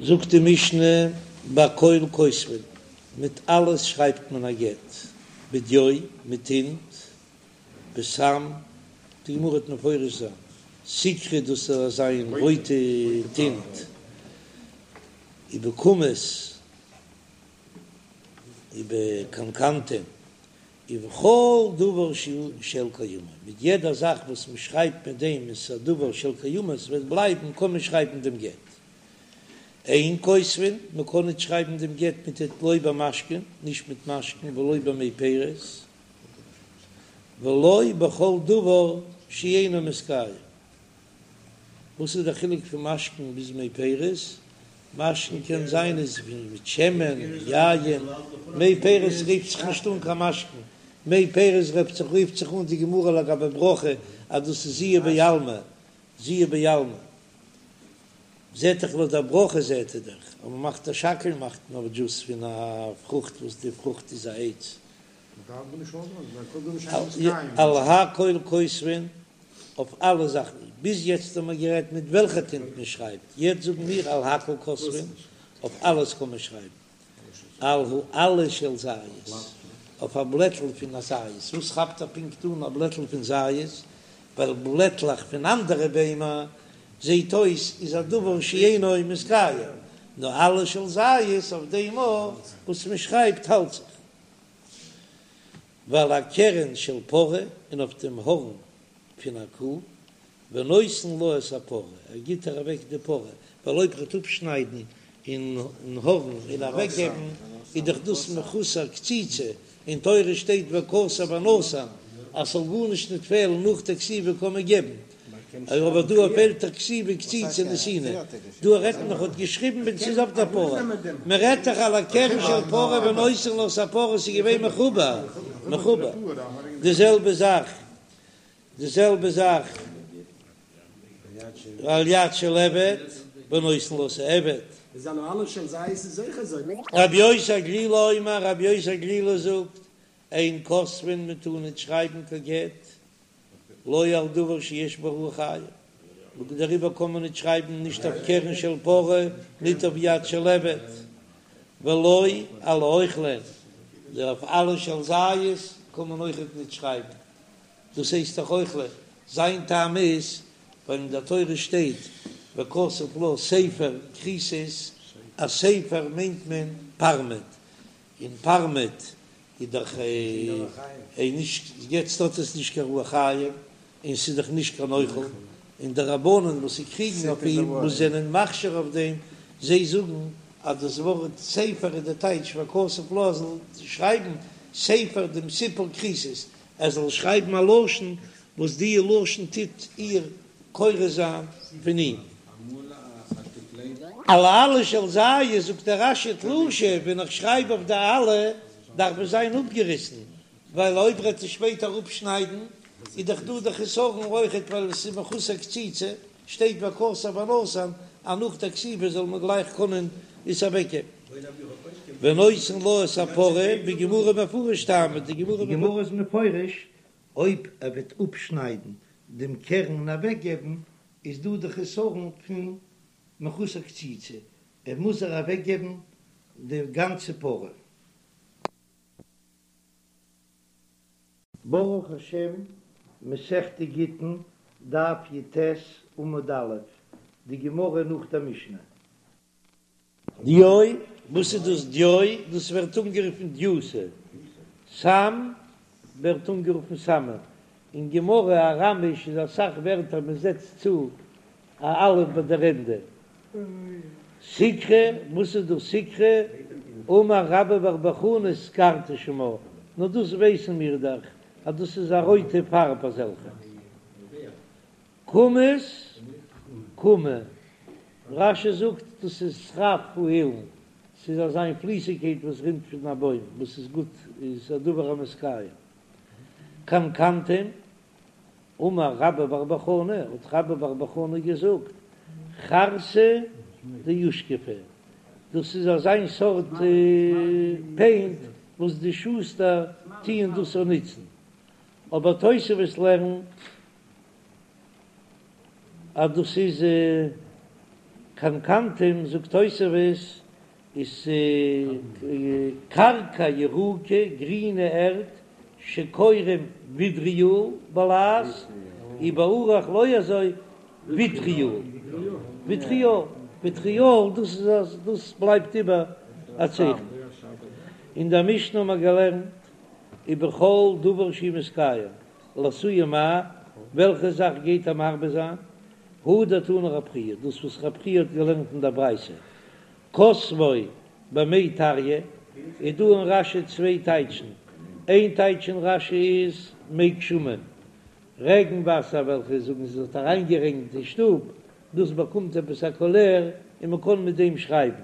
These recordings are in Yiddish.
זאגט די משנה בכל כותבין, מיט אלעס שרייבט מען א גט, בדיו, מיט טינט, בסם, די גמרא וועט מפרש זיין, סיקרא דאס איז אזא מין רויטע טינט, ובקומוס, ובקנקנתום, ובכל דבר שהוא של קיימא, מיט יעדע זאך וואס מען שרייבט מיט דעם איז א דבר של קיימא, ס'וועט בלייבן, קען מען שרייבן דעם גט. אין כותבין, מען קען ניט שרייבן דעם גט מיט ט לא במשקין, נישט מיט משקין ולא במי פירות, ולא בכל דבר שאינו מתקיים. וואס איז דער חילוק פון משקין ביז מי פירות? משקין קען זיין איז ווי מיט שמן, יין, מי פירות רופט זיך נישט אן קיין משקין, מי פירות רופט זיך רופט זיך אן די גמרא לגבי ברכה אז דאס איז זיעה בעלמא, זיעה בעלמא זעט דאך לויט די ברכה זעט ער דאך אז מען מאכט א שהכל מאכט מען אויף דזשוס פון א פרוכט וואס די פרוכט איז א עץ. על הכל כותבין אויף אלע זאכן, ביז יעצט האבן מיר גערעדט מיט וועלכע טינט מען שרייבט, יעצט זאגן מיר על הכל כותבין, אויף אלעס קען מען שרייבן, על העלה של זית, אויף א בלעטל פון א זית, וואס כאפט ער פונקט אן א בלעטל פון זית, ווייל בלעטלעך פון אנדערע ביימער זעט אויס איז א דבר שאינו מתקיים, נאר עלה של זית אויף דעם וואס מען שרייבט האלט זיך. ועל הקרן של פרה, און אויף דעם הארן פון א קו, ונותן לה את הפרה, ער גיט איר אוועק די פרה, ווייל אויב ער וועט אפשניידן אין הארן און אוועקגעבן, איז דאך דאס מחוסר קציצה, אין תורה שטייט וכתב ונתן, אז ס'זאל גארנישט ניט פעלן נאך די כתיבה קען מען געבן, אבער דא פעלט דאך כתיבה קציצה נתינה, דא רעדט מען האט געשריבן ווען ס'איז אויף דער פרה, מען רעדט דאך על הקרן של פרה ונותן לה את הפרה ס'איז געווען מחובר, מחובר, די זעלבע זאך, די זעלבע זאך על יד של עבד ונותן לה את העבד. רבי יוסי הגלילי אומר, רבי יוסי הגלילי זאגט, אין כותבין מען טאר ניט שרייבן קיין גט לא על דבר שיש בו רוח חיים, און דעריבער קען מען ניט שרייבן נישט אויף קרן של פרה, ניט אויף יד של עבד, ולא על האוכלין, אויף עלה של זית קען מען אויכעט ניט שרייבן, דאס הייסט דאך אוכלין, זיין טעם איז ווייל אין דער תורה שטייט וכתב לה ספר כריתות, א ספר מיינט מען פארמעט, און פארמעט איז דאך נישט, יעצט האט עס נישט קיין רוח חיים, און ס'איז דאך נישט קיין אוכל, און די רבנן וואס זיי קריגן אויף אים, וואס זענען מכשיר אויף דעם, זיי זאגן אז דאס ווארט ספר איז די טייטש וכתב לה ער זאל שרייבן ספר דעם סיפור כריתות, ער זאל שרייבן א לשון וואס די לשון טוט איר כורת זיין פון אים. על העלה של זית זאגט דער רש"י תלושה, ווען איך שרייב אויף די עלה דארף עס זיין אפגעריסן, ווייל אויב רעט עס שפעטער אפשניידן איז דאך דא די חסרון אויכעט ווייל עס איז מחוסר קציצה, שטייט וכתב ונתן אז נאך די כתיבה זאל מען גלייך קענען עס אוועקגעבן. ונותן לה את הפרה, בגמרא מפרש טעמא, די גמרא איז מפרש אויב ער וועט אפשניידן דעם קרן און אוועקגעבן איז דא די חסרון פון מחוסר קציצה, ער מוז איר אוועקגעבן די גאנצע פרה. ברוך השם, מסכת גיטין, דף י"ט עמוד א', די גמרא נאך דער משנה. דיו, וואס איז דאס דיו? דאס ווערט אנגערופן דיותא, סם ווערט אנגערופן סמא, אין גמרא אראמיש איז אסאך ווערטער מען זעצט צו א אלף ביי דער ענדע. סיקרא, וואס איז דאס סיקרא? אמר רבה בר בר חנה סקרתא שמה, נו דאס ווייסן מיר דאך אז דאס איז א רויטע פארב אזעלכע. קומוס, כומא, רש"י זאגט דאס איז שרף האילן, ס'איז אזא מין פליסיגקייט וואס רינט פון א בוים וואס איז גוט, איז א דבר המתקיים. קנקנתום, אמר רבה בר בר חנה, האט רבה בר בר חנה געזאגט, חרתא דאושכפי, דאס איז אזא מין סארט פעינט וואס די שוסטער טוען דאס אנוצן, אבער תוספות לערנט אז דאס איז. קנקנתום זאגט תוספות איז קרקע ירוקה, גרינע ערד, שקורין וויטריאל בלע"ז, ובערוך לא אזוי וויטריאל, וויטריאל, וויטריאל, דאס איז אז דאס בלייבט איבער א צייכן. אין דער משנה האט מען געלערנט ובכל דבר שהוא מתקיים, לאתויי מאי, וועלכע זאך גייט ער מרבה זיין? הא דתני רב חייא, דאס וואס רב חייא האט געלערנט אין דער ברייתא, כתבו במי טריא, איז דא אין רש"י צוויי טייטשן, איין טייטש אין רש"י איז מי גשמים, רעגן וואסער וועלכע זאגן זיי האט אריינגערעגנט אין שטוב, דאס באקומט עפעס א קאליר און מען קען מיט דעם שרייבן.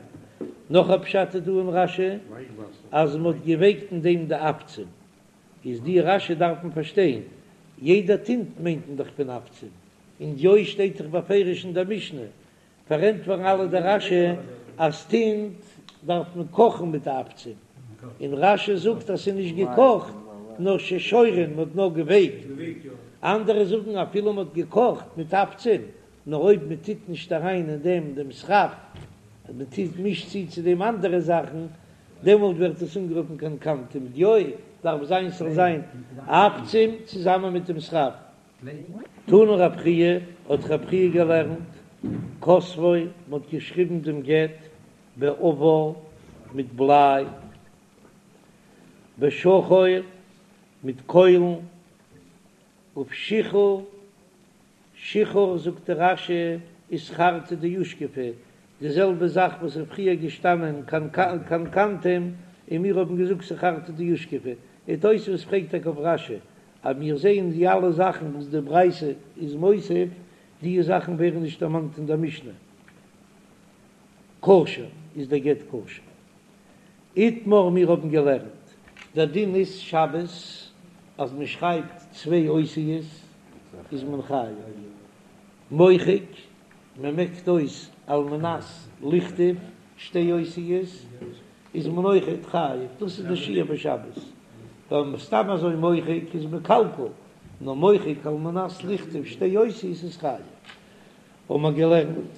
נאך א פשט איז דא אין רש"י אז מען האט געווייקט אין דעם די עפצים, איז די רש"י דארף מען פארשטיין, יעדע טינט מיינט מען דאך פון עפצים, און דיו שטייט דאך בפירוש אין דער משנה, פארענטפערן אלע די רש"י אז טינט דארף מען קאכן מיט די עפצים, און רש"י זאגט אז ס'איז נישט געקאכט נאר ששורין, מ'האט נאר געווייקט, אנדערע זאגן אפילו מ'האט געקאכט מיט עפצים, נאר אויב מ'טוט נישט אריין אין דעם דעם שרף, אז מ'טוט מישט צו צו דעם אנדערע זאכן, דעמאלט ווערט עס אנגערופן קנקנתום, דיו דארף זיין ס'זאל זיין עפצים צוזאמען מיט דעם שרף. תני רב חייא, האט רב חייא געלערנט, כתבו, מ'האט געשריבן דעם גט באבר מיט בליי, בשחור מיט קוילן, ובשיחור, שיחור זאגט דער רש"י איז חרטא דאושכפי, די זעלבע זאך וואס איז פריער געשטאנען קנקנתום און מיר האבן געזאגט ס'חרטא דאושכפי, און תוספות פרעגט טאקע אויף רש"י אז מיר זעען די אלע זאכן וואס די ברייתא איז מוסיף, די זאכן ווערן נישט דערמאנט אין דער משנה. כשר, איז דער גט כשר. איתמר מיר האבן געלערנט. דער דין איז שבת אז מען שרייבט צוויי אותיות איז מען חייב. מוחק, מען מעקט אויס על מנת לכתוב שתי אותיות איז מען אויכעט חייב, דאס איז די שיעור בשבת, ווייל סתם אזוי מוחק איז מקלקל, נאר מוחק על מנת לכתוב שתי אותיות איז חייב. האבן מיר געלערנט,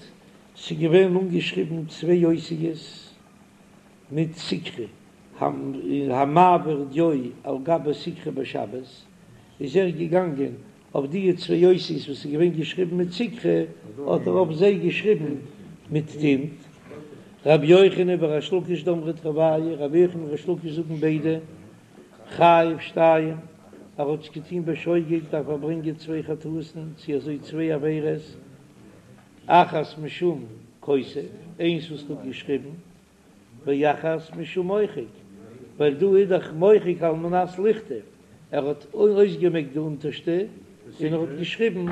ס'איז געווען אנגעשריבן צוויי אותיות מיט סיקרא, המעביר דיו על גבי סיקרא בשבת, איז ער געגאנגען אויף די צוויי אותיות וואס איז געווען געשריבן מיט סיקרא, האט ער אויף זיי געשריבן מיט טינט. רבי יוחנן וריש לקיש דאמרי תרוייהו, רבי יוחנן און ריש לקיש זאגן ביידע, חייב שתיים, ער האט עס געטון בשוגג דארף ער ברענגען צוויי חטאת'ן, צו אזוי צוויי עבירות, אחת משום כותב, איינס וואס ער האט געשריבן, ואחת משום מוחק, ווייל דא איז דאך מוחק על מנת לכתוב, ער האט אויסגעמעקט די אונטערשטע און ער האט געשריבן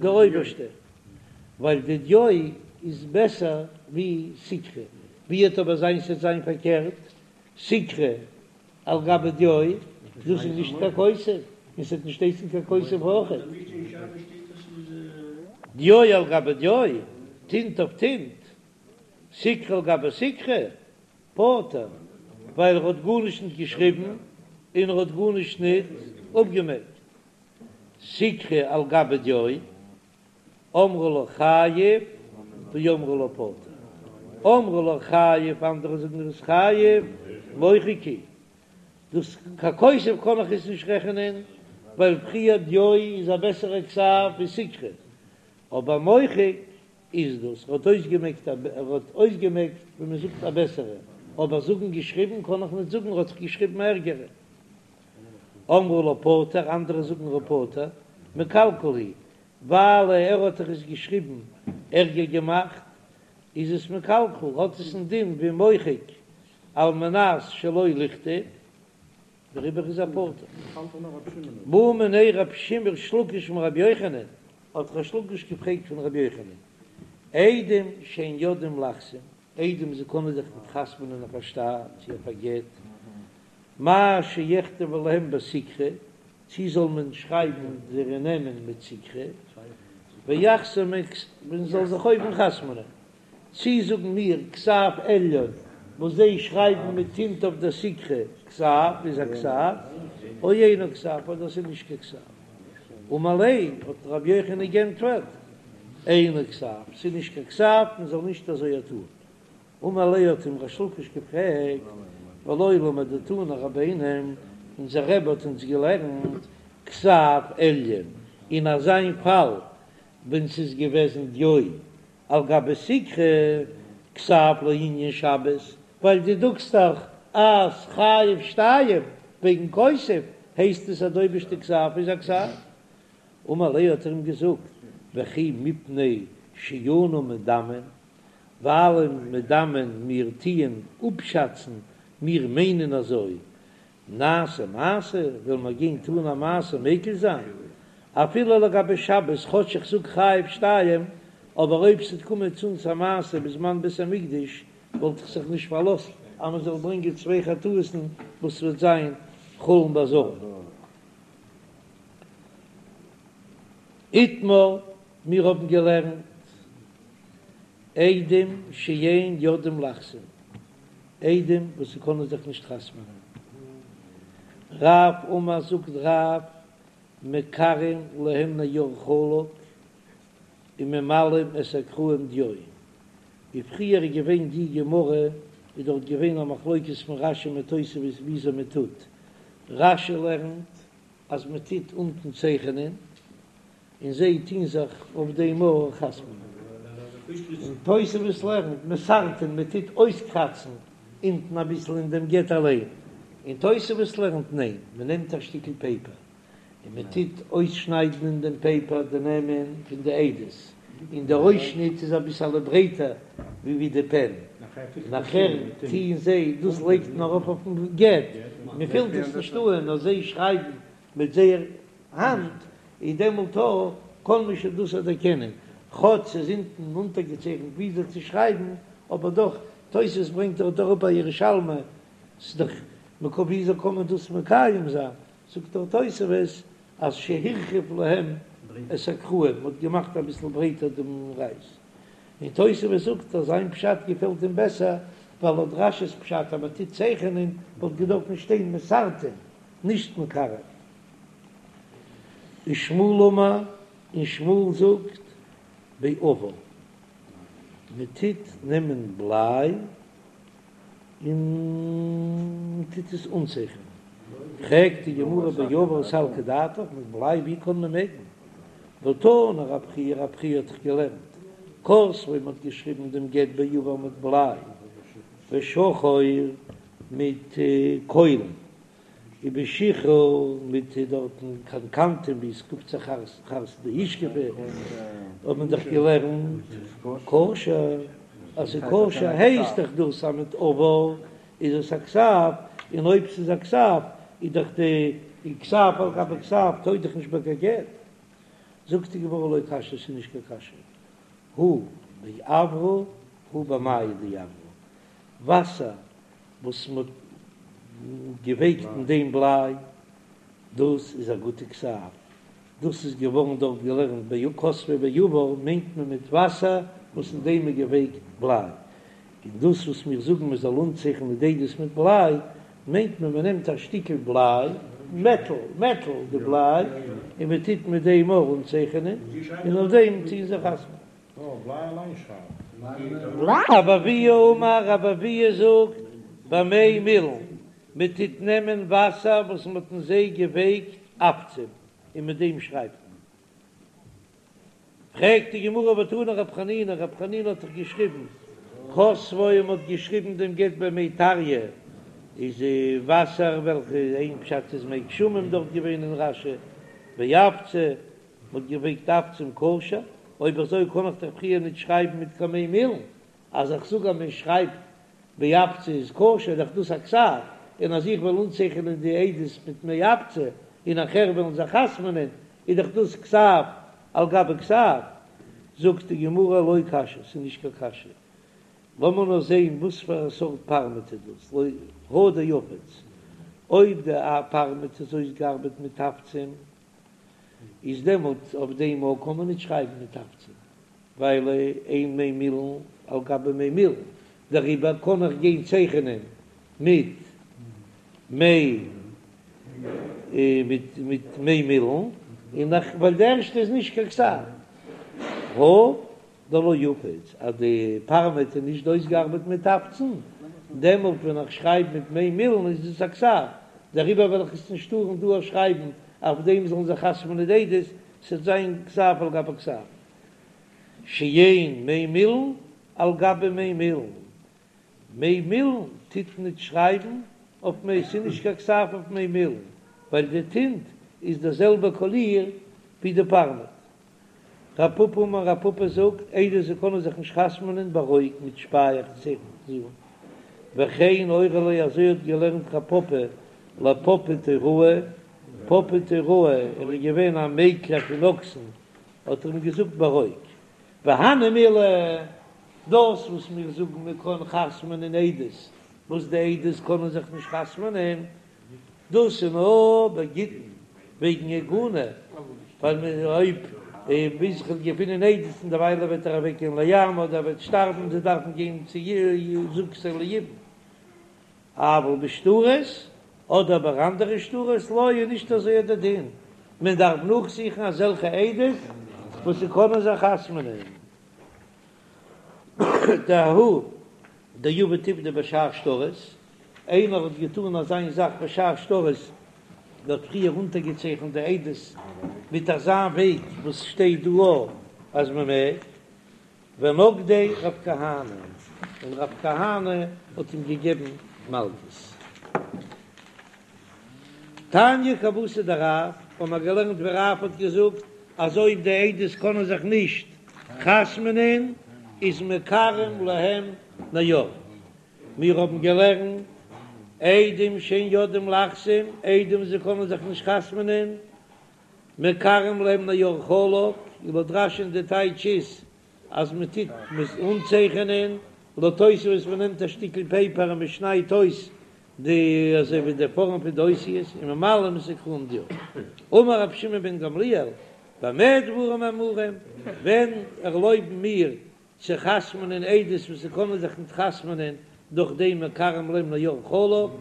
די אויבערשטע, ווייל די דיו איז בעסער ווי סיקרא, ווי וועט אבער זיין ס'וועט זיין פארקערט, סיקרא על גבי דיו, דאס איז נישט קיין כותב, און ס'וועט נישט הייסן קיין כותב אויכעט. דיו על גבי דיו, טינט אויף טינט, סיקרא על גבי סיקרא, פטור, ווייל ער האט גארנישט ניט געשריבן און ער האט גארנישט ניט אפגעמעקט. סיקרא על גבי דיו, אמרי לה חייב ואמרי לה פטור. אמרי לה חייב, אנדערע זאגן ער איז חייב, מוחק הוא. דאס קיין כותב קען איך עס נישט רעכענען, ווייל פריער דיו איז א בעסערע כתב ווי סיקרא, אבער מוחק איז דאס, ער האט אויסגעמעקט א, ער האט אויסגעמעקט ווי מען זאגט א בעסערע, אבער זאגן געשריבן קען איך ניט זאגן, ער האט דאך געשריבן א ערגערע. אמרי לה פטור, אנדערע זאגן ער איז פטור, מקלקל הוא, ווייל ער האט דאך עס געשריבן ערגער געמאכט, איז עס מקלקל, האט עס א דין ווי מוחק על מנת שלא לכתוב. דעריבער איז ער פטור. בעא מיניה רב שמעון ריש לקיש מרבי יוחנן, האט ריש לקיש געפרעגט פון רבי יוחנן, עדים שאין יודעים לחתום, עדים זיי קענען זיך ניט חתמ'נען אויף א שטר צו אויף א גט, מהו שיכתבו להם בסיקרא, צי זאל מען שרייבן זייערע נעמען מיט סיקרא, ויחתמו, מען זאל זיך אויבן חתמ'נען. צי זאגן מיר כתב עליון וואס זיי שרייבן מיט טינט אויף דער סיקרא כתב איז א כתב, או אינו כתב אדער ס'איז נישט קיין כתב. אמר ליה האט רבי יוחנן גענטפערט. אינו כתב, ס'איז נישט קיין כתב, מען זאל נישט אזוי טאן. אמר ליה האט אים ריש לקיש געפרעגט, והלא למדתנו רבינו, אונזער רבי האט אונז געלערנט כתב עליון, אין אזיין פאל ווען ס'איז געוועזן דיו על גבי סיקרא, כתב לענין שבת, ווייל דו זאגסט דאך אז חייב שתיים וועגן כותב, הייסט עס אז די אויבערשטע כתב איז א כתב. אמר ליה האט ער אים געזאגט, וכי מפני שאנו מדמין, ווייל מדמין מיר טוען אפשאצן, מיר מיינען אזוי, נעשה מעשה, וועלן מיר גיין טון א מעשה מקיל זיין, אפילו לגבי שבת, כאטש איך זאג חייב שתיים, אבער אויב ס'וועט קומען צו אונז א מעשה בזמן בית המקדש, וואלט איך זיך נישט פארלאזט אז מ'זאל ברענגען צוויי חטאות'ן וואס וועט זיין חולין בעזרה. איתמר, מיר האבן געלערנט עדים שאין יודעים לחתום, עדים וואס ס'קענען זיך נישט חתמ'נען. רב אמר זאגט רב, מקרעין להם נייר חלק וממלאין את הקרעים דיו. ווי פריער איז געווען די גמרא איז דארט געווען א מחלוקת פון רש"י מיט תוספות וויאזוי מען טוט, רש"י לערנט אז מען טוט אונטן צייכענען און זיי טוהן זיך אויף דעם אויך חתמ'נען, און תוספות לערנט מסרטין מען טוט אויסקראצן אונטן אביסל אין דעם גט אליין, און תוספות לערנט ניין מען נעמט א שטיקל פעיפער און מען טוט אויסשניידן אין דעם פעיפער די נעמען פון די עדות, און דער אויסשניט איז אביסעלע ברייטער ווי ווי די פען, נאכער טוען זיי דאס לייגט מען ארויף אויפן גט, מען פילט עס נישט אן נאר זיי שרייבן מיט זייער האנט, איז דעמאלט אויך קען מען שוין דאס דערקענען, כאטש ס'איז אונטן אונטערגעצייכנט וויאזוי צו שרייבן, אבער דאך, תוס' ברענגט דארט אראפ א ירושלמי, ס'איז דאך מקוה וויאזוי קען מען דאס מקיים זיין, זאגט דער תוספות אז שהרחיב להם את הקרעים, מ'האט געמאכט אביסל ברייטער דעם רייז, און תוספות זאגט אז זיין פשט געפעלט אים בעסער, ווייל לויט רש"י'ס פשט אז מ'טוט צייכענען וואלט געדארפן שטיין מסרטין, נישט מקרעין. ושמואל אמר, און שמואל זאגט באבר, מ'טוט נעמען בליי, און מען טוט עס אנצייכענען. פרעגט די גמרא באבר סלקא דעתך, מיט בליי ווי קען מען מעגן? והתני רב חייא, רב חייא האט דאך געלערנט כתבו, מען האט געשריבן דעם גט באבר מיט בליי בשחור מיט קוילן. ובשיחור מיט דארטן קנקנתום ווי עס קוקט זיך חרתא דאושכפי האט מען דאך געלערנט כשר אז ס'איז כשר הייסט דאך דאס אז מיט אבר איז עס א כתב און אויב ס'איז א כתב איז דאך די כתב על גבי כתב טויג דאך נישט ביי קיין גט זאגט די גמרא לא קשיא ס'איז נישט קיין קשיא הא באברא הא במיא דאברא וואסער וואס מ'האט געווייקט אין דעם בליי, דאס איז א גוטע כתב, דאס איז געווארן דארט געלערנט ביי כתבו באבר מיינט מען מיט וואסער וואס אין דעם איז געווייקט בליי, און דאס וואס מיר זאגן מען זאל אנצייכענען די עדות מיט בליי, מיינט מען מען נעמט א שטיקל בליי, מעטל, מעטל, די בליי, און מען טוט מיט דעם אויך אנצייכענען, און אויף דעם טוען זיי חתמ'ענען. רבי אבהו אמר, רבי אבהו זאגט, במי מילין, מען טוט נעמען וואסער וואס מען האט אין זיי געווייקט עפצים, און מיט דעם שרייבט מען. פרעגט די גמרא והתני רב חנינא, רב חנינא האט דאך געשריבן, כתבו מען האט געשריבן דעם גט במי טריא, איז וואסער וועלכע איין פשט איז מי גשמים דארט געווען אין רש"י, באפצא, מ'האט געווייקט עפצים כשר, אויב אזוי קען איך דאך פריער ניט שרייבן מיט קיין מי מילין, אז איך זאג אז מען שרייבט באפצא איז כשר איז דאך דאס א כתב, און אז איך וועל אנצייכענען די עדות מיט מי אפצא און נאכער וועלן זיי חתמ'נען איז דאך דאס כתב על גבי כתב, זאגט די גמרא לא קשיא, ס'איז נישט קיין קשיא, לאמיר נאר זעהן וואס פאר א סארט פארמעט איז דאס, לא הא דאפיץ, אויב די פארמעט איז אויסגעארבעט מיט עפצים איז דעמאלט אויף דעם מאל קען מען ניט שרייבן מיט עפצים, ווייל אין מי מילין על גבי מי מילין, דעריבער קען איך גיין צייכענען מיט מי מיט מיט מי מילין, און נאך ווייל די ערשטע איז נישט קיין כתב. הא דלא אפיץ, אז די פארמעט איז נישט אויסגעארבעט מיט תפצן, דעמאלט ווען איך שרייב מיט מי מילין איז דאס א כתב, דעריבער וועל איך עס נישט טארן דא שרייבן, אויף דעם זאלן זיך חתמ'נען די עדות, ס'וועט זיין כתב על גבי כתב. שאין מי מילין על גבי מי מילין, מי מילין טוט ניט שרייבן אויף מי, ס'איז נישט קיין כתב אויף מי מילין, ווייל די טינט איז דער זעלבער קאליר ווי די פארמעט. רב פפא אמר רב פפא זאגט, עדות זיי קענען זיך נישט חתמ'נען ברוק מיט שפייעכץ וכן אורי ליה אזוי האט געלערנט רב פפא לפפא תוראי, פפא תוראי ער איז געווען א מעקלער פון אקסן האט ער אים געזאגט ברוק. והני מילי, דאס וואס מיר זאגן מען קען חתמ'נען עדות וואס די עדות קענען זיך נישט חתמ'נען, דאס איז נאר בגיטין וועגן עגונה, ווייל מען אויב ביז כ'וועל געפינען עדות און דערוויילע וועט ער אוועק גיין לים אדער ער וועט שטארבן זיי דארפן גיין צו זקוקין ליבום. אבל בשטרות אדער ביי אנדערע שטרות לא איז נישט אזוי דער דין, מען דארף נאכזוכן אזעלכע עדות וואס ס'קענען זיך חתמ'נען. דההוא דעבד עובדא בשאר שטרות, איינער האט געטאן אזיין זאך בשאר שטרות, ער האט פריער אונטערגעצייכנט די עדות מיט אזא וועג וואס שטייט דא אז מען מעג, ונגדיה רב כהנא, און רב כהנא האט אים געגעבן מלקות. תניא כוותיה דרב, האבן מיר געלערנט ווי רב האט געזאגט אז אויב די עדות קענען זיך נישט חתמ'נען איז מקרעין להם נייר. מיר האבן געלערנט עדים שאין יודעים לחתום, עדים זיי קענען זיך נישט חתמ'נען, מקרעין להם נייר חלק, לויט רש"י'ן די טייטש איז אז מען טוט אנצייכענען, לויט תוספות מען נעמט א שטיקל פעיפער און מען שניידט אויס די אזוי ווי די פארעם פון די אותיות און ממלאין את הקרעים דיו. אמר רבי שמעון בן גמליאל, במה דברים אמורים, ווען ערלויבן מיר צו חתמ'נען עדות וואס זיי קענען זיך ניט חתמ'נען דורך דעם מקרעין להם נייר חלק,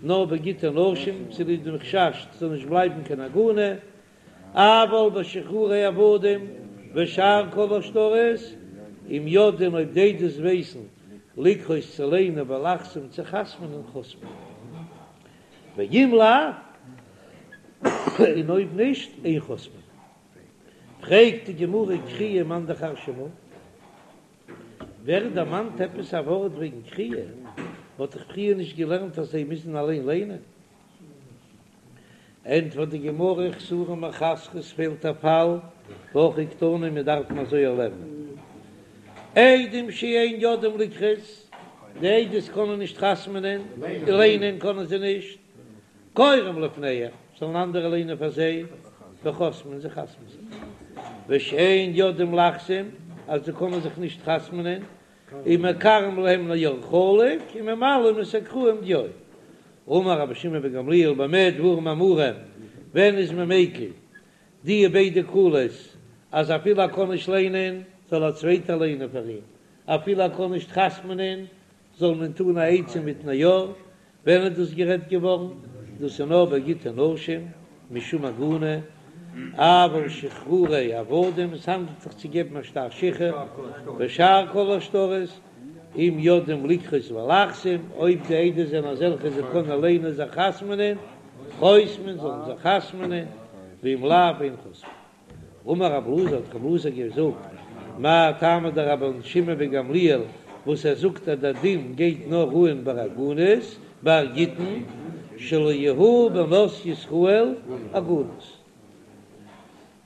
נאר בגיטי נשים, צוליב דעם חשש ס'זאל נישט בלייבן קיין עגונה, אבל בשחרורי עבדים ושאר כל השטרות, אם יודעין אויב די עדות ווייסן לקרות צו ליינען ולחתום צו חתמ'נען חותמין, ואם לאו, און אויב נישט, אין חותמין. פרעגט די גמרא קריאה מאן דכר שמיה, ווער דערמאנט עפעס א ווארט וועגן קריאה? מ'האט דאך פריער נישט געלערנט אז זיי מוזן אליין ליינען. ענטפערט די גמרא חסורי מחסרא ס'פעלט א פאל והכי קתני מיר דארפן אזוי לערנען עדים שאין יודעים לקרות, די עדות קענען נישט חתמ'נען, ליינען קענען זיי נישט, קוראים לפניהם, זאלן אנדערע ליינען פאר זיי, וחותמין זיי חתמ'ן זיך. ושאין יודעים לחתום, אז זיי קענען זיך נישט חתמ'נען, איז מקרעין להם נייר חלק וממלאין את הקרעים דיו. אמר רבי שמעון בן גמליאל במה דברים אמורים, ווען איז מען מיקל די ביידע קולות אז אפילו ער קען נישט ליינען זאל א צווייטער ליינען פאר אים, אפילו ער קען נישט חתמ'נען זאל מען טון א עצה מיט נייר, ווען איז דאס גערעדט געווארן? דאס איז נאר ביי גיטי נשים, משום עגונה, אבל שחרורי עבדים, עס האנדלט זיך צו געבן א שטר שחרור, ושאר כל השטרות, אם יודעים לקרות ולחתום, אויב די עדות זענען אזעלכע זיי קענען ליינען זיך חתמ'נען, חותמין זאלן זיי חתמ'נען, ואם לאו אין חותמין. אמר רב אלעזר האט רב אלעזר געזאגט, מאי טעמא דרבן שמעון בן גמליאל וואס ער זאגט אז דער דין גייט נאר אהן ביי עגונות, ביי גיטין, שלא יהו בנות ישראל עגונות,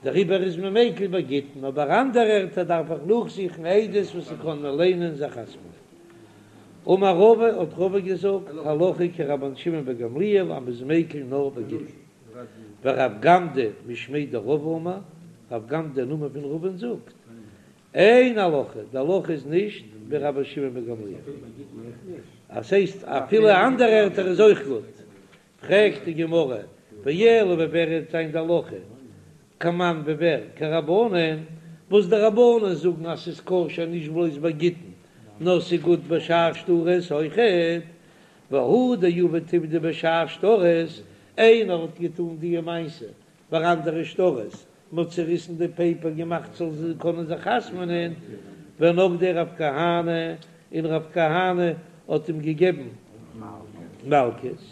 דעריבער איז מען מיקל ביי גיטין, אבער אנדערע ערטער דארף איך נאכזוכן עדות וואס ס'קענען ליינען זיך חתמ'נען. אמר רבא האט רבא געזאגט, הלכה כרבן שמעון בן גמליאל אז מ'איז מיקל נאר ביי גיטין. ורב גמדא משמיה דרבא אמר, רב גמדא אין נאמען פון רבא'ן זאגט, אין הלכה, די הלכה איז נישט ווי רבן שמעון בן גמליאל, אז ס'הייסט אפילו אנדערע ערטער איז אויך גוט, פרעגט די גמרא, ואלא ווי ווער וועט זיין די הלכה, כמאן ווי ווער, כרבנן, וואס די רבנן זאגן אז ס'איז כשר נישט בלויז ביי גיטין, נאר ס'איז גוט בשאר שטרות אויכעט, והוא דעבד עובדא בשאר שטרות, איינער האט געטאן די מעשה ביי אנדערע שטרות. מ'האט צעריסן די פעיפער געמאכט זאל זיי קענען זיך חתמ'נען, ונגדיה רב כהנא, און רב כהנא האט אים געגעבן מלקות.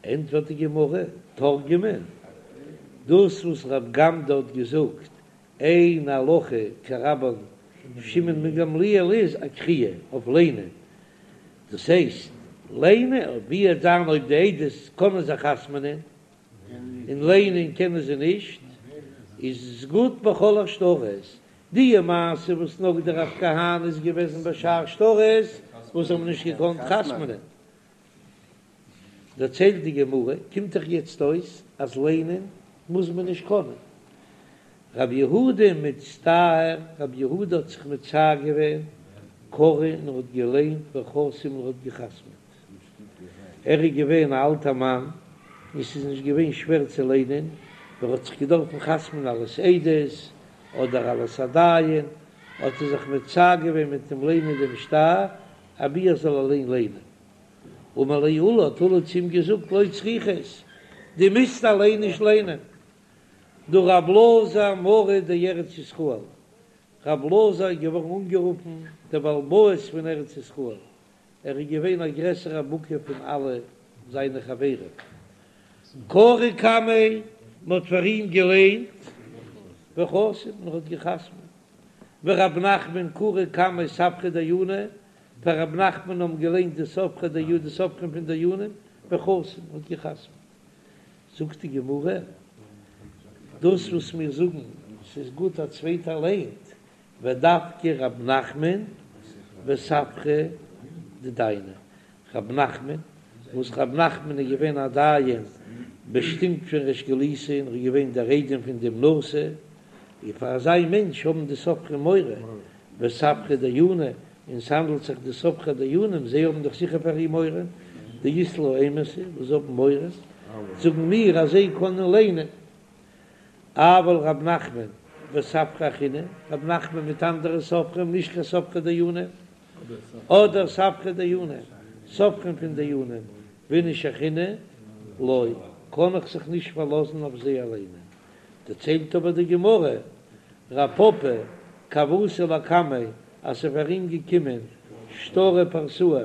ענטפערט די גמרא, תרגמה, דאס וואס רב גמדא האט געזאגט אין הלכה כרבן שמעון בן גמליאל איז אקריאה אויף ליינען, דאס הייסט ליינען ווי וועט זיין אויב די עדות קענען זיך חתמ'נען און ליינען קענען זיי נישט, איז עס גוט בכל השטרות, די מעשה וואס נגדיה רב כהנא איז געוועזן בשאר שטרות וואס האבן נישט געקאנט חתמ'נען. דערציילט די גמרא, קומט דאך יעצט אויס אז ליינען מוז מען נישט קענען. רב יהודה מצטער, רב יהודה האט זיך מצער געווען, קרא און ער האט געליינט וחתים און ער האט געחתמעט. ער איז געווען א אלטער מאן און ס'איז נישט געווען שווער צו ליינען, ער האט זיך געדארפן חתמ'ן אלס עדות אדער אלס א דיין, האט ער זיך מצער געווען מיט דעם ליינען דעם שטר, אבי ער זאל אליין ליינען. אמר ליה עולא, האט עולא צו אים געזאגט, לא צריכת, דו מוזט אליין נישט ליינען. דהא רב אלעזר מרא דארץ ישראל, רב אלעזר איז געווארן אנגערופן דער בעל הבית פון ארץ ישראל, ער איז געווען א גרעסערע בקי פון אלע זיינע חברים. קרו קמיה, מען האט פאר אים געליינט, וחתים, און ער האט געחתמעט. ורב נחמן קרו קמיה ספרי דייני, פאר רב נחמן האבן געליינט די ספרי דיו די סופרים פון דיינים, וחתים, האט געחתמעט. זאגט די גמרא, דאס וואס מיר זאגן ס'איז גוט א צווייטער ליינט, ודווקא רב נחמן וספרי דדייני, רב נחמן, וואס רב נחמן איז געווען א דיין באשטימט פון ריש גלותא און ער איז געווען דער איידעם פון דעם נשיא, און פאר אזא מענטש האבן די סופרים מורא, וספרי דייני, און ס'האנדלט זיך די סופרי דיינים, זיי האבן דאך זיכער פאר אים מורא, דאית להו אימתא, וואס זיי האבן מורא, זאגן מיר אז זיי קענען ליינען. אבל רב נחמן וספרי אחריני, רב נחמן מיט אנדערע סופרים, נישט קיין סופרי דיינים, אדער ספרי דיינים, סופרים פון דיינים, ואיניש אחרינא, לא, קען איך זיך נישט פארלאזן אויף זיי אליינע. דערציילט אבער די גמרא, רב פפא כי הוה אתא לקמיה, אז ס'איז פאר אים געקומען שטרא פרסאה,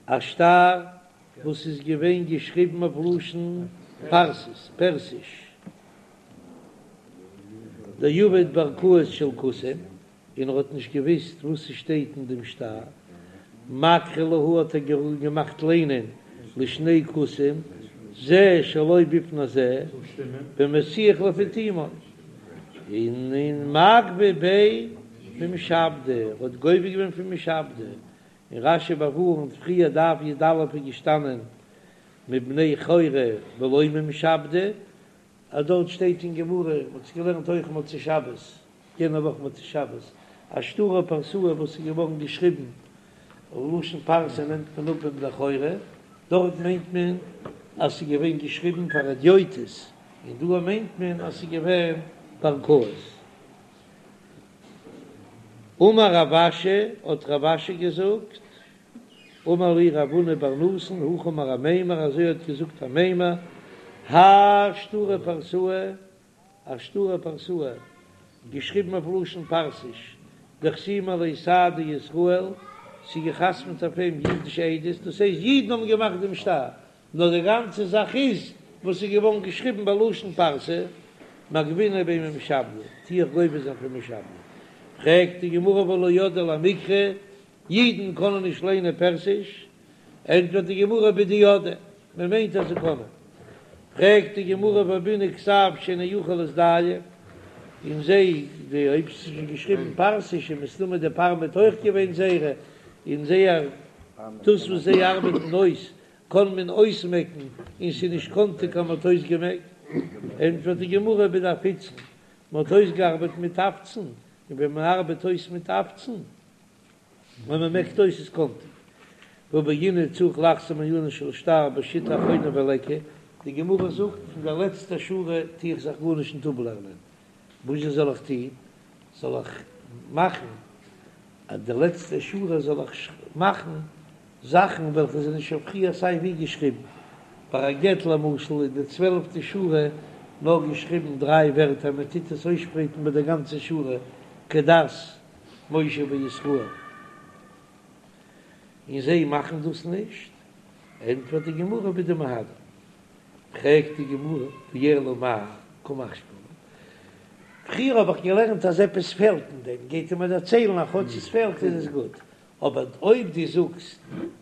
א שטר וואס איז געווען געשריבן אויף לשון פרסית, פערסיש, דעבד בערכאות של כותים, און ער האט נישט געוואוסט וואס ס'שטייט אין דעם שטר, מקרי להו האט ער געמאכט ליינען לשני כותים, זה שלא בפני זה, ומסיח לפי תומו, און און מגבי ביה ממשעבדי, ער האט גובה געווען פון משעבדי, און רש"י באווארנט פריער דף י"א איז געשטאנען מבני חורי ולא ממשעבדי, אז דארט שטייט אין גמרא, מען האט עס געלערנט אויך מוצאי שבת, יענע וואך מוצאי שבת, א שטרא פרסאה וואס איז געווארן געשריבן לשון פרסי נעמט מען אפ מבני חורי, דארט מיינט מען אז ס'איז געווען געשריבן פאר הדיוטות, און דא מיינט מען אז ס'איז געווען בערכאות. אמר רב אשי, האט רב אשי געזאגט, אמר לי רב הונא בר נתן, הכי אמר אמימר, אזוי האט געזאגט אמימר, האי שטרא פרסאה, א שטרא פרסאה, געשריבן אויף לשון פרסיש, דחתימי עליה סהדי ישראל, ס'איז געחתמעט אויף אים אידישע עדות, דאס הייסט אידן האבן געמאכט דעם שטר, נאר די גאנצע זאך איז וואס איז געווארן געשריבן בלשון פרסי, מגבינא ביה ממשעבדי, טו איך גובה זיין פון משעבדי. פרעגט די גמרא והא לא ידעי למיקרי, אידן קענען נישט ליינען פערסיש? ענטפערט די גמרא בדידעי, מען מיינט אז זיי קענען. פרעגט די גמרא והא בעינן כתב שאינו יכול להזדייף, און זיי, די אויב ס'איז שוין געשריבן פרסיש איז מסתמא די פארמעט אויך געווען זייערע, און זייער דאס וואס זיי ארבעטן אויס קען מען אויסמעקן און ס'איז נישט קאנטיג אז מ'האט אויסגעמעקט, ענטפערט די גמרא בדאפיצן, מ'האט אויסגעארבעט מיט אפצן, און ווען מ'ארבעט אויס מיט אפצן, ווען מ'מעקט אויס איז קאנטיג. והא בעינן צריך לחזור מעניינו של שטר בשיטה אחרונה וליכא, די גמרא זאגט פון דער לעצטער שורה טו איך זיך גארנישט ניט אפלערנען, וואזשע זאל איך טון? זאל איך מאכן אז די לעצטע שורה זאל איך מאכן זאכן וועלכע זענען שוין פריער סיי ווי געשריבן. ביי א גט למשל איז די צוועלפטע שורה. נאר געשריבן דריי ווערטער, מען טוט עס אויסשפרייטן ביי די גאנצע שורה כדת משה וישראל, און זיי מאכן דאס נישט, ענטפערט די גמרא בדמהדרין, פרעגט די גמרא ואלא מאי קא משמע לן, פריער האב איך געלערנט אז עפעס פעלט אין דעם, גייט ער מיר דערציילן אז כאטש עס פעלט איז עס גוט, אבער אויב דו זאגסט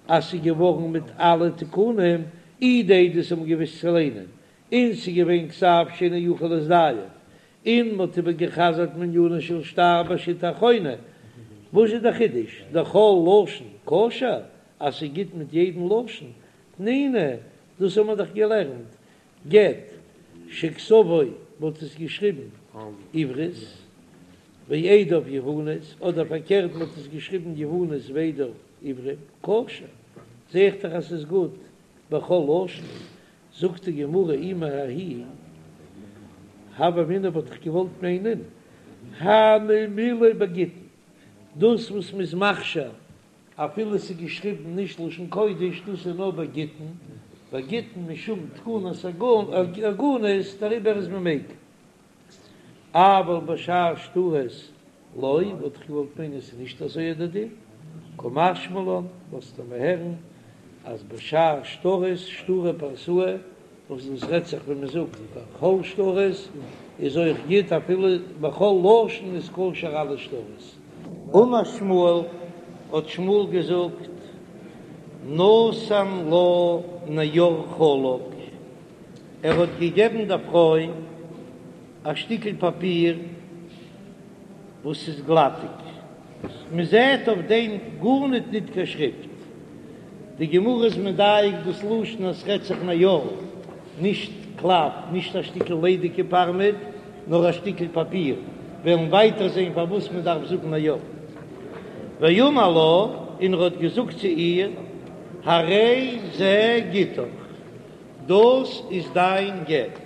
אז ס'איז געווארן מיט אלע תיקונים, אי די עדות האבן געוואוסט צו ליינען, און ס'איז געווען כתב שאינו יכול להזדייף, און מ'האט איבער גע'חזר'ט מענינו של שטר בשיטה האחרונה, וואס איז דער חידוש? דכל לשון כשר? אז ס'איז גוט מיט יעדן לשון? תנינא, דאס האבן מיר דאך געלערנט, גט שכתבו מ'האט עס געשריבן עברית ועדיו יוונית, אדער פארקערט מ'האט עס געשריבן יוונית ועדיו עברית, כשר, זע איך דאך אז ס'איז גוט בכל לשון, זאגט די גמרא אי מההיא הוה אמינא וואלט איך געוואלט מיינען הני מילי בגיטין, דאס וואס מ'איז מכשיר אפילו ס'איז געשריבן נישט לשון קודש, דאס איז נאר ביי גיטין, ביי גיטין משום תקנת עגונות, דעריבער איז מען מיקל. אבל בשאר שטרות לא, וואלט איך געוואלט מיינען ס'איז נישט אזוי דער דין, קא משמע לן, לאזט ער מיר הערן אז בשאר שטרות, שטרי פרסאי, וואס דאס רעדט זיך ווען מען זאגט בכל שטרות איז אויך גוט אפילו בכל לשון איז כשר אלע שטרות. אמר שמואל, האט שמואל געזאגט, נתן לה נייר חלק, ער האט געגעבן דער פרוי א שטיקל פאפיר וואס איז גלאטיג, מען זעט אויף דעם גארניט ניט קיין שריפט. די גמרא איז מדייק דאס לשון אז ס'רעדט זיך נייר, נישט קלף, נישט א שטיקל ליידיגע פארמעט, נאר א שטיקל פאפיר. וועלן ווייטער זען פארוואס מען דארף זאגן נייר. ואמר לה, און ער האט געזאגט צו איר, הרי זה גיטך, דאס איז דיין גט.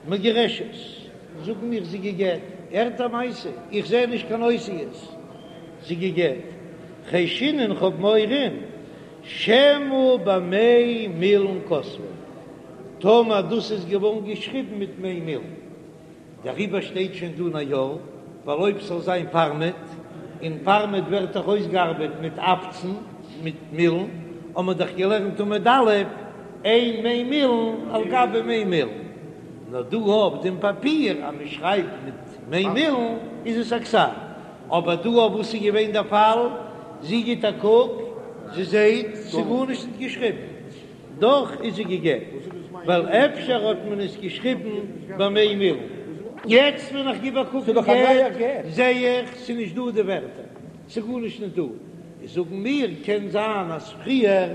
מגורשת, זאגן מיר זי געגט, הערט א מעשה, איך זע נישט קיין אותיות, זי געגט, חיישינן כ'האב מורא, שמא במי מילין כתבו, טאמער דאס איז געווארן געשריבן מיט מי מילין. דעריבער שטייט שוין דא נייר, ווייל אויב ס'זאל זיין פארמעט, און פארמעט ווערט דאך אויסגעארבעט מיט עפצן, מיט מילן, האבן מיר דאך געלערנט עמוד א', אין מי מילין על גבי מי מילין. נאר דא אויף דעם פאפיר אז מען שרייבט מיט מי מילין איז עס א כתב. אבער דא אויף וואס איז געווען דער פאל? זי גיט א קוק, זי זעט ס'איז גארנישט נישט געשריבן. דאך איז זי גע'גט, ווייל אפשר האט מען עס געשריבן במי מילין. יעצט ווען איך גיב א קוק אין גט זעה איך ס'איז נישט דא די ווערטער, ס'איז גארנישט נישט דא. זאגן מיר קען זיין אז פריער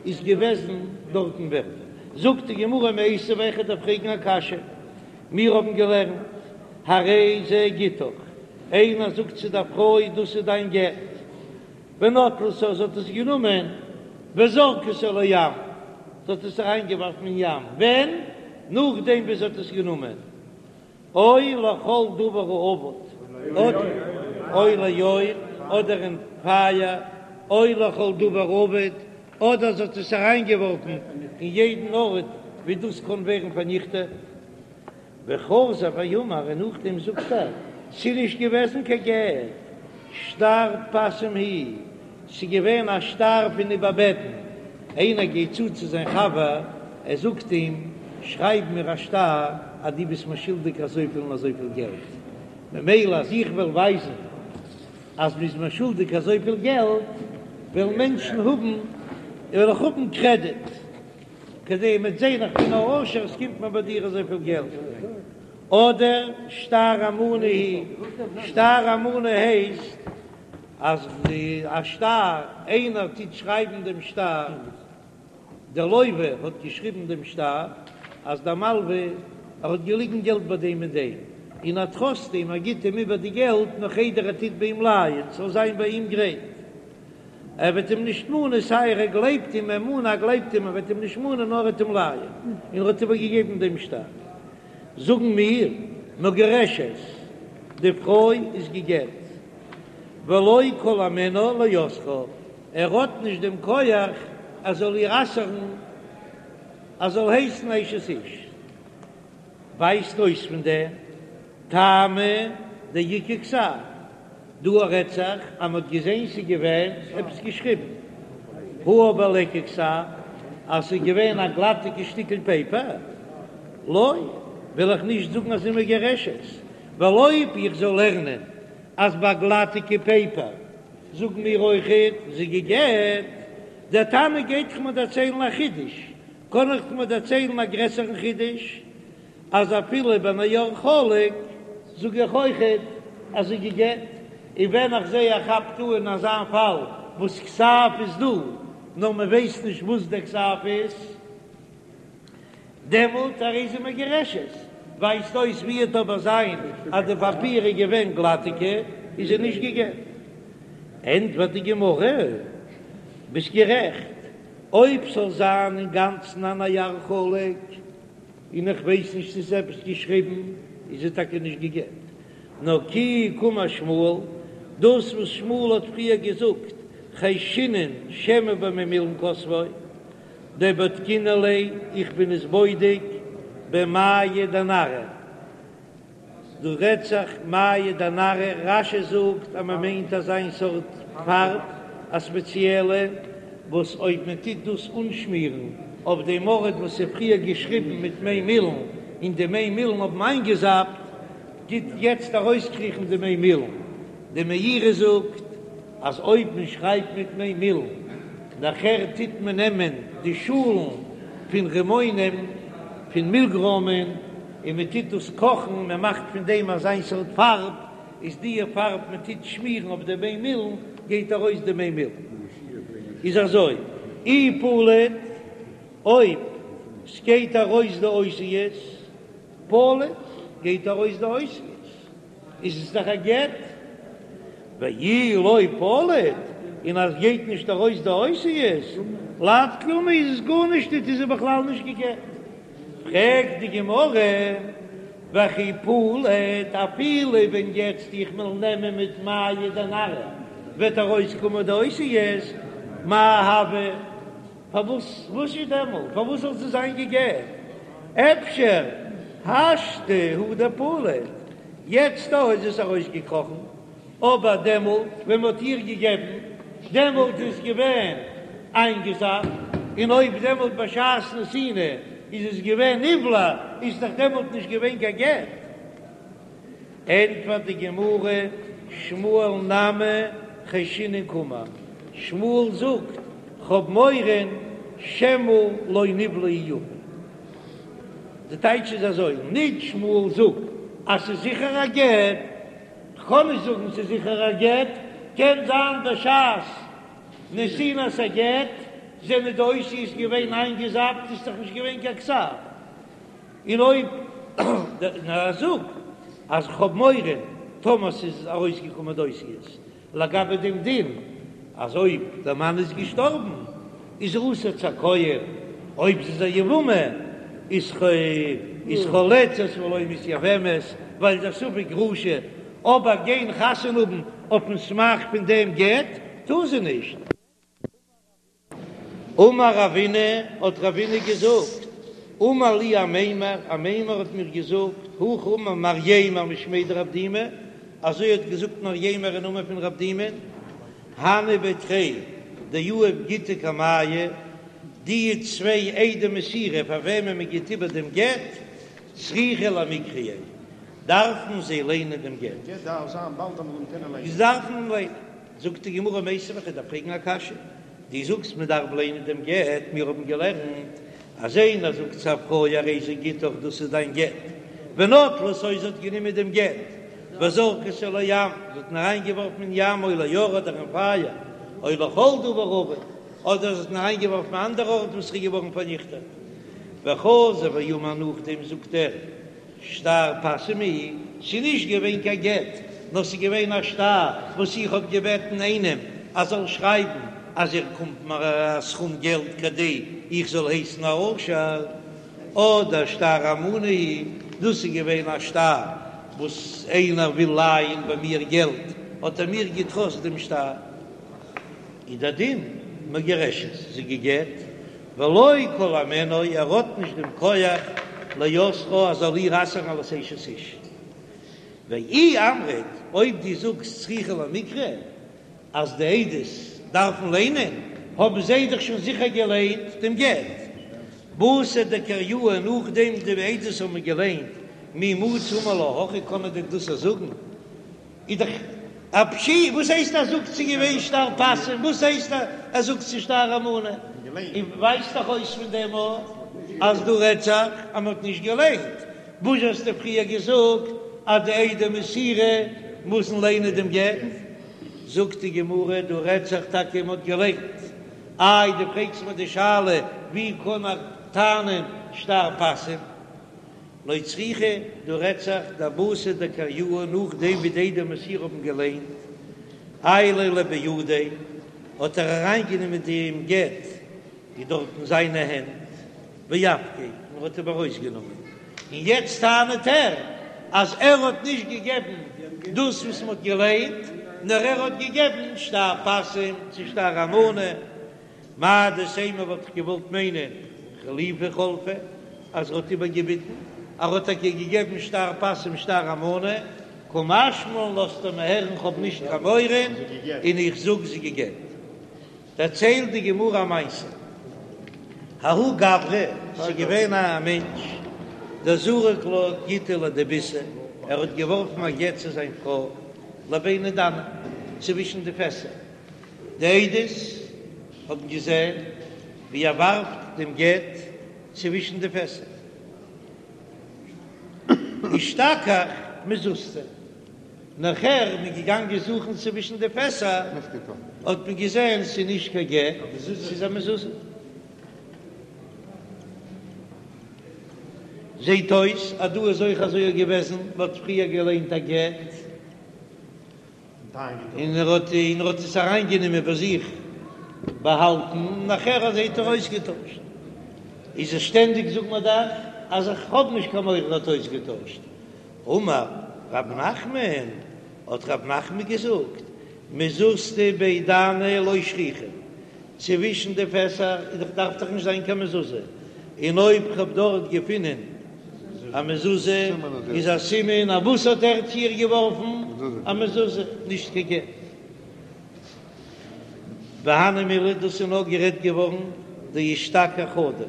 איז געוועזן דארטן ווערטער. זאגט די גמרא מיתיבי וועל איך דיר פרעגן א קשיא, מיר האבן געלערנט הרי זה גיטך, איינער זאגט צו דער פרוי דאס איז דיין גט, ונטלתו זי האט עס גענומען וזרקתו לים, זי האט עס אריינגעווארפן אין ים, ווען? נאכדעם ווי זי האט עס גענומען, או לכל דבר האבד, או לאור, אדער אין פייער, או לכל דבר האבד, אדער זי האט עס אריינגעווארפן אין יעדן ארט ווי דאס קען ווערן פארניכטעט. וחזר ואמר, און נאכדעם זאגט ער, ס'איז נישט געוועזן קיין גט, שטר פסים הוא, ס'איז געווען א שטר פון איבערבעטן, איינער גייט צו צו זיין חבר, ער זאגט אים, שרייב מיר א שטר אז דו ביסט מיר שולדיג אזויפיל און אזויפיל געלט, ממילא אז איך וועל ווייזן אז מ'איז מיר שולדיג אזויפיל געלט, וועלן מענטשן האבן, וועל איך האבן קרעדיט. כדי מ'וועט זען איך בין א עושר עס קומט מיר ביי דיר אזויפיל געלט, אדער שטר אמנה הוא, שטר אמנה הייסט אז די א שטר איינער טוט שרייבן דעם שטר, דער לוה האט געשריבן דעם שטר אז דער מלווה ער האט געליגן געלט ביי דעם און דעם, און ער טראסט אים ער גיט אים איבער די געלט נאך איידער ער טוט ביי אים לייען ס'זאל זיין ביי אים גרייט. ער וועט אים נישט מאנען, סיי ער גלייבט אים, אמנה ער גלייבט אים, ער וועט אים נישט מאנען נאר ער וועט אים לייען, און ער האט איבערגעגעבן דעם שטר. זאגן מיר, מגורשת, די פרוי איז גע'גט, ולא כל הימנה לאוסרה, ער האט נישט דעם כח ער זאל איר אסר'ן, ער זאל הייסן אשת איש. ווייזט אויס פון דעם טעמא דאיכא כתב, דא רעדט זיך אז מ'האט געזען ס'איז געווען עפעס געשריבן, הא אבער ליכא כתב אז ס'איז געווען א גלאטיגע שטיקל פעיפער, לא, וויל איך נישט זאגן אז זי מגורשת, ווייל אויב איך זאל לערנען אז ביי גלאטיגע פעיפער זאגן מיר אויכעט זי גע'גט, דער תנא גייט דאך מיר דערציילן א חידוש, קען איך מיר דערציילן א גרעסערן חידוש, אז אפילו בנייר חלק זאג איך אויכעט אז זי גע'גט, און ווען איך זע איך כאפ טא אין אזא פאל וואס כתב איז דא נאר מען ווייסט נישט וואס דער כתב איז, דעמאלט הרי זו מגורשת, ווייזט אויס ווי עט אבער זיין אז די פאפיר איז געווען גלאטיגע איז זי נישט גע'גט. ענטפערט די גמרא, ביסט גערעכט, אויב ס'זאל זיין אינגאנצן א נייר חלק, און איך ווייס נישט צו ס'איז עפעס געשריבן, איז זי טאקע נישט גע'גט. נאר כי קאמר שמואל, דאס וואס שמואל האט פריער געזאגט, חיישינן שמא במי מילין כתבו, דבדקינן ליה, איך בין עס בודק במיא דנרא. דא רעדט זיך מיא דנרא, רש"י זאגט אז מען מיינט אזיין סארט פארב, א ספעציעלע, וואס אויב מען טוט דאס אנשמירן אויף דעם ארט וואס איז פריער געשריבן מיט מי מילין, און די מי מילין האבן איינגעזאפט, טוט יעצט ארויסקריכן די מי מילין. די מאירי זאגט אז אויב מען שרייבט מיט מי מילין, נאכער טוט מען נעמען די שאלן פון רימונים, פון מילגרוימען, און מען טוט דאס קאכן, מען מאכט פון דעם אזיין סארט פארב, איז דיע פארב מען טוט שמירן אויף די מי מילין, גייט ארויס די מי מילין. איז אזוי, אי פליט, אויב סגייט ארויס די אותיות, פליט, גייט ארויס די אותיות. איז עס דאך א גט, ואי לא פליט, און אז גייט נישט ארויס די אותיות, לאו כלום איז עס גארנישט ניט איז ער בכלל נישט גע'גט. פרעגט די גמרא, וכי פליט, אפילו ווען יעצט איך וועל נעמען מיט מיא דנרא וועט ארויסקומען די אותיות, מאי הוי? פארוואס וואס איז דעמאלט? פארוואס זאל זי זיין גע'גט? אפשר השתא הוא דפליט, יעצט דא איז עס ארויסגעקראכן, אבער דעמאלט ווען מ'האט איר געגעבן, דעמאלט איז עס געווען איינגעזאפט, און אויב דעמאלט בשעת נתינה איז עס געווען נבלע, איז דאך דעמאלט נישט געווען קיין גט. ענטפערט די גמרא, שמואל נמי חיישינן קאמר, שמואל זאגט, כ'האב מורא שמא לא נבלעה יפה. די טייטש איז אזוי, נישט שמואל זאגט אז ס'איז זיכער א גט, כ'קען נישט זאגן ס'איז זיכער א גט, קען זיין בשעת נתינת הגט זענען די אותיות געווען איינגעזאפט, איז דאך נישט געווען קיין כתב. און אויב נאר ער זאגט אז כ'האב מורא טאמער ס'איז ארויסגעקומען די אותיות לגבי דעם דין אז אויב דער מאן איז געשטארבן איז זי אסור צו א כהן, אויב זי איז א יבמה איז איז חולצת ולא מתייבמת ווייל ס'איז א ספק גרושה, אבער גיין חתונה האבן אויפן סמך פון דעם גט טאר זי נישט. אמר רבינא, האט רבינא געזאגט, אמר לי אמימר, אמימר האט מיר געזאגט, הכי אמר מרימר משמיה דרב דימי, אזוי האט געזאגט מרימר אין נאמען פון רב דימי, הני בי תרי דיהיב גיטא קמייהו, די צוויי עדי מסירה פאר וועמען מען גיט איבער דעם גט, צריכי למיקרייה, דארפן זיי ליינען דעם גט. זיי דארפן ליינען. זאגט די גמרא מיתיבי, איך דארף פרעגן א קשיא, דו זאגסט מען דארף ליינען דעם גט, מיר האבן געלערנט אז איינער זאגט צו א פרוי הרי זה גיטך דאס איז דיין גט, ונטלתו זי האט גענומען דעם גט, וזרקתו לים, זי האט אים אריינגעווארפן אין ים או לאור אדער אין פייער, או לכל דבר אבד, אדער זי האט אים אריינגעווארפן אין אנדערע ארט וואס איז געווארן פארניכטעט, וחזר ואמר נאכדעם זאגט ער שטר פסים הוא, ס'איז נישט געווען קיין גט, נאר ס'איז געווען א שטר וואס איך האב געבעטן איינעם אז זאל שרייבן אז ער קומט מיר א סכום געלט כדי איך זאל הייסן א עושר, אדער שטר אמנה הוא, דאס איז געווען א שטר וואס איינער וויל לייען ביי מיר געלט, האט ער מיר געטראסט דעם שטר. איז דער דין מגורשת, זי גע'גט, ולא כל הימנו, ער האט נישט דעם כח. לאוסרה אז זאל איר אסר'ן אלס אשת איש. ואי אמרת, אויב דו זאגסט צריכי למיקרי אז די עדות דארפן ליינען, האבן זיי דאך שוין זיכער געליינט דעם גט. בתר דקריוה נאכדעם די עדות האבן געליינט מי מצי אמר לה הכי קען מען דען דאס זאגן? איז דאך א פשיטא, וואס הייסט ער זאגט ס'איז געווען שטר פסים? וואס הייסט ער זאגט ס'איז שטר אמנה? און ווייזט דאך אויס פון דעם אז דא רעדט זיך אז מ'האט נישט געליינט. וואס האסטו פריער געזאגט אז די עדי מסירה מוזן ליינען דעם גט? זאגט די גמרא דא רעדט זיך טאקע מ'האט געליינט. איי דו פרעגסט מיר די שאלה ווי קען ער טענה'ן שטר פסים? לא צריכא, דא רעדט זיך דבתר דקריוה נאכדעם ווי די עדי מסירה האבן געליינט עייליה לבידיה האט ער אריינגענומען דעם גט איז דארט אין זיינע הענט ואפקיה און האט אים ארויסגענומען און יעצט טענה'ט ער אז ער האט נישט געגעבן דאס וואס מ'האט געליינט נאר ער האט געגעבן שטר פסים צו שטר אמנה. מהו דתימא וואלט איך געוואלט מיינען חלופי חלפיה אז ער האט איבערגעביטן, ער האט טאקע געגעבן שטר פסים שטר אמנה, קא משמע לן לאזט ער מיר הערן כ'האב נישט קיין מורא און איך זאג זי געגעבט. דערציילט די גמרא א מעשה, ההוא גברא, ס'איז געווען א מענטש דזרק לה גיטא לדביתיה, ער האט געווארפן א גט צו זיין פרוי לביני דני, צווישן די פעסער, די עדות האבן געזען ווי ער ווארפט דעם גט צווישן די פעסער. אשתכח מזוזתא. נאכער מ'איז געגאנגען זוכן צווישן די פעסער, האט מען געזען ס'איז נישט קיין גט, ס'איז א מזוזה. זעט אויס אז דא איז אויך אזוי געוועזן, מ'האט פריער געליינט א גט. און ער האט און ער האט עס אריינגענומען ביי זיך באהאלטן, און נאכער אזוי האט ער אויסגעטוישט. איז עס שטענדיג זאגט מען דאך אז איך האב נישט קיין מורא ער האט אויסגעטוישט. אמר רב נחמן, האט רב נחמן געזאגט, מזוזתא בי דני לא שכיחא, צווישן די פעסער איז דאך דארף דאך נישט זיין קיין מזוזה, און אויב כ'האב דארט געפונען א מזוזה איז א סימן אז וואס האט ער צו איר געווארפן? א מזוזה, נישט קיין גט. והני מילי, דאס איז נאר גערעדט געווארן דאשתכח חדא,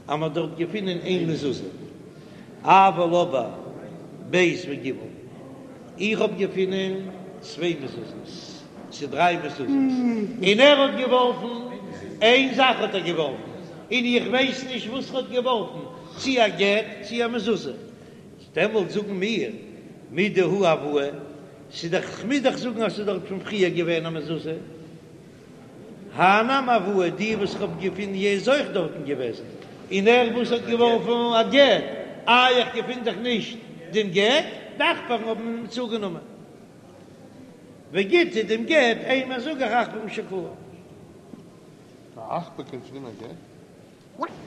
אז מ'האט דארט געפונען איין מזוזה, אבל אבער ב' וג', איך האב געפונען צוויי מזוזות, צו דריי מזוזות, און ער האט געווארפן איין זאך האט ער געווארפן, און איך ווייס נישט וואס ער האט געווארפן, צי א גט צי א מזוזה, דעמאלט זאגן מיר מידי הא הואי, ס'איז דאך, כ'מוז דאך זאגן אז ס'איז דארט פון פריער געווען א מזוזה. הא נמי הואי, די וואס איך האב געפונען יע איז אויך דארטן געוועזן, און ער וואס האט געווארפן א גט, איי איך געפין דאך נישט דעם גט, די עכברים האבן אים צוגענומען. וגיטא דעם גט, אימא זאג איך עכברים שקלוה. א עכבר קען צונעמען א גט?